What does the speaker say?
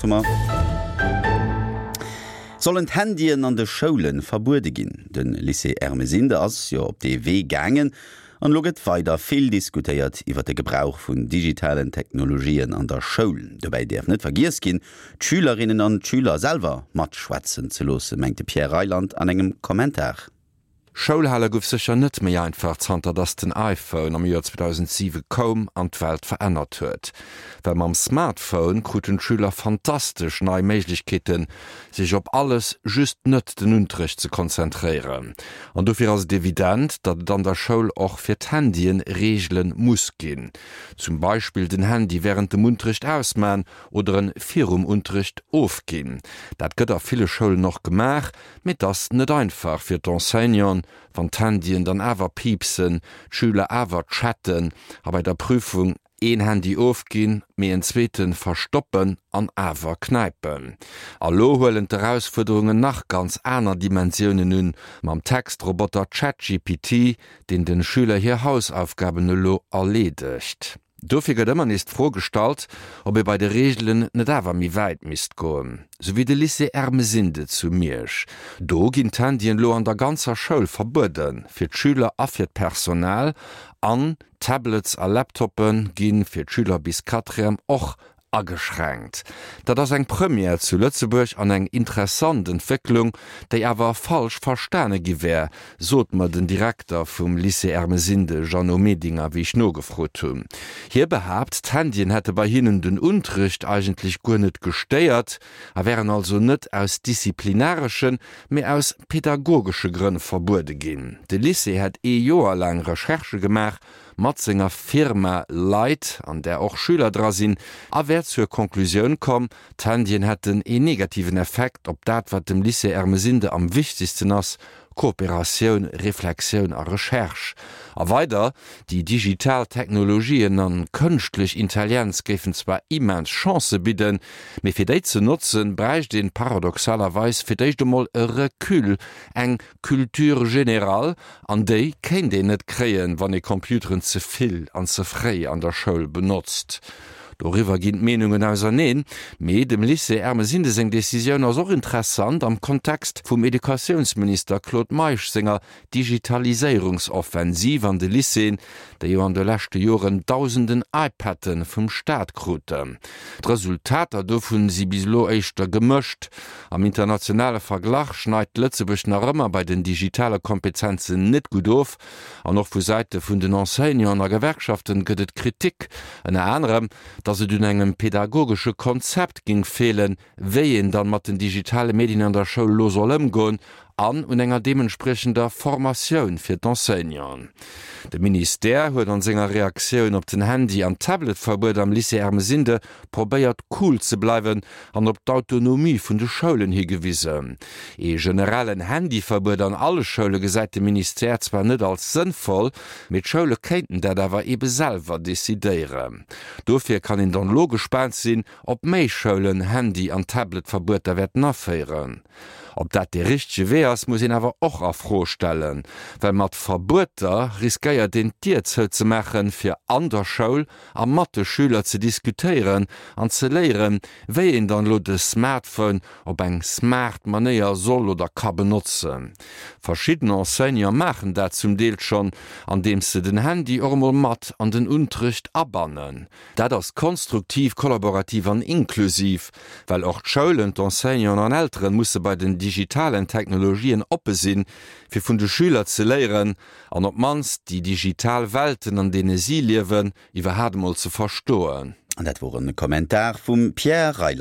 8 hu mer. Sollen d'Handyen an de Schoule verbuede ginn? De Lycée Ermesinde ass jo op dee Wee gaangen an elo gëtt weider vill diskutéiert iwwer de Gebrauch vun digitalen Technologien an der Schoul. Dobäi däerf net vergiess ginn, d'Schülerinnen an d'Schüler selwer matschwätzen ze loossen, mengt de Pierre Reyland an engem Kommentar. Schoulhale gouf sécher net méi einfach zanter dass den iPhone am Joer 2007 koum an d'Welt verännert huet. Well mam Smartphone kruten d'Schüler fantastesch nei Méiglechkeeten, sech op alles, just net den Unterrecht ze konzentréieren. An dofir ass et evident, datt et an der Schoul och fir d'Handyen Reegele muss ginn. Zum Beispill den Handy wärend dem Unterrecht ausman oder en virum Unterrecht ofginn. Dat gëtt a ville Schoulen och gemaach, Mee 't ass net einfach fir d'Enseignanten, wann d'Handyen dann awer piipsen, d'Schüler awer chatten a bei der Prüfung een Handy ofginn, mee en zweete verstoppen an awer knäipen. A lo huelen d'Erausfuerderungen nach ganz aner Dimensiounen un, mam Textroboter ChatGPT, deen den Schüler hir Hausaufgaben elo erleedegt. Dofir gëtt ëmmer nees d'Fro gestallt, ob ee bei de Reegelen net awer méi wäit misst goen. Sou wéi de Lycée Ermesinde zu Miersch. Do ginn d'Handyen elo an der ganzer Schoul verbuede fir d'Schüler a fir d'Personal. An Tablets a Laptoppe gi fir d'Schüler bis Quatrième och Ageschränkt. Dat ass eng Première zu Lëtzebuerg an eng interessant Entwécklung, déi awer falsch verstane gi wär, sot mer den Direkter vum Lycée Ermesinde Jeannot Medinger, wéi ech nogefrot hunn. Hie behaapt, d'Handyen hätte bei hinnen den Unterricht eigentlech guer net gestéiert a wären also net aus disziplinareschen, mee aus pedagogesche Grënn verbuede ginn. De Lycée hätt ee Joer laang Recherchë gemaach mat senger Firma Leit, an där och Schüler dra sinn, a wär zur Conclusioun komm, d'Handyen hätten een negativen Effekt op dat, wat dem Lycée Ermesinde am wichtegsten ass, Kooperatioun, Reflexioun a Recherche. A weider, déi digital Technologien an kënschtlech Intellienz géifen zwar immens Chancë bidden, mee fir déi ze notzen, bräicht een paradoxalerweis fir d'éischt emol e Recul, eng Culture générale, An déi kéint een net kréien, wann ee Computeren ze vill an ze fréi an der Schoul benotzt. Doriwwer ginn d'Meenungen auserneen. Mee dem Lycée Ermesinde seng Decisioun ass och interessant am Kontext vum Educatiounsminister Claude Meisch senger Digitaliséierungsoffensiv an de Lycéeën, déi jo an de leschte Joren dausenden iPaden vum Staat kruten. D'Resultater dovun si bis elo éischter gemëscht. Am internationale Verglach schneit Lëtzebuerg nach ëmmer bei den digitale Kompetenzen net gutt of. An och vu Säite vun den Enseignanten a Gewerkschaften gëtt et Kritik, ënner anerem, datt et un engem pedagogesche Konzept géing feelen, wéi een dann mat den digitale Medien an der Schoul elo soll ëmgoen an un enger deementspriechender Formatioun fir d'Enseignanten. De Ministère huet an senger Reaktioun op den Handy an Tabletverbuet am Lycée Ermesinde probéiert cool ze bleiwen an op d'Autonomie vun de Schoulen higewisen. Ee generellen Handyverbuet an alle Schoule gesäit de Ministère zwar net als sënnvoll, mee d'Schoule kéinten dat awer ebe selwer decidéieren. Dofir kann een dann elo gespaant sinn, Ob méi Schoulen Handy an Tablet-Verbueter wäerten aféieren? Ob dat dee richtege Wee ass, muss een awer och a Fro stellen, well mat Verbueter riskéiert een d'Dier zouzemaachen, fir an der Schoul a mat de Schüler ze diskutéieren an ze léieren, wéi een dann elo de Smartphone op eng smart Manéier soll oder ka benotzen. Verschidden Enseignante maachen dat zum Deel schonn, andeems se den Handy och emol mat an den Unterrecht abannen. Dat ass konstruktiv, kollaborativ an inklusiv, well och d'Schoulen, d'Enseignanten an Elteren musse bei den digitalen Technologien oppe sinn, fir vun de Schüler ze léieren an op d'mannst déi digital Welten, an deene si liewen, iwwerhaat emol ze verstoen. An dat wor e Kommentar vum Pierre Reyland.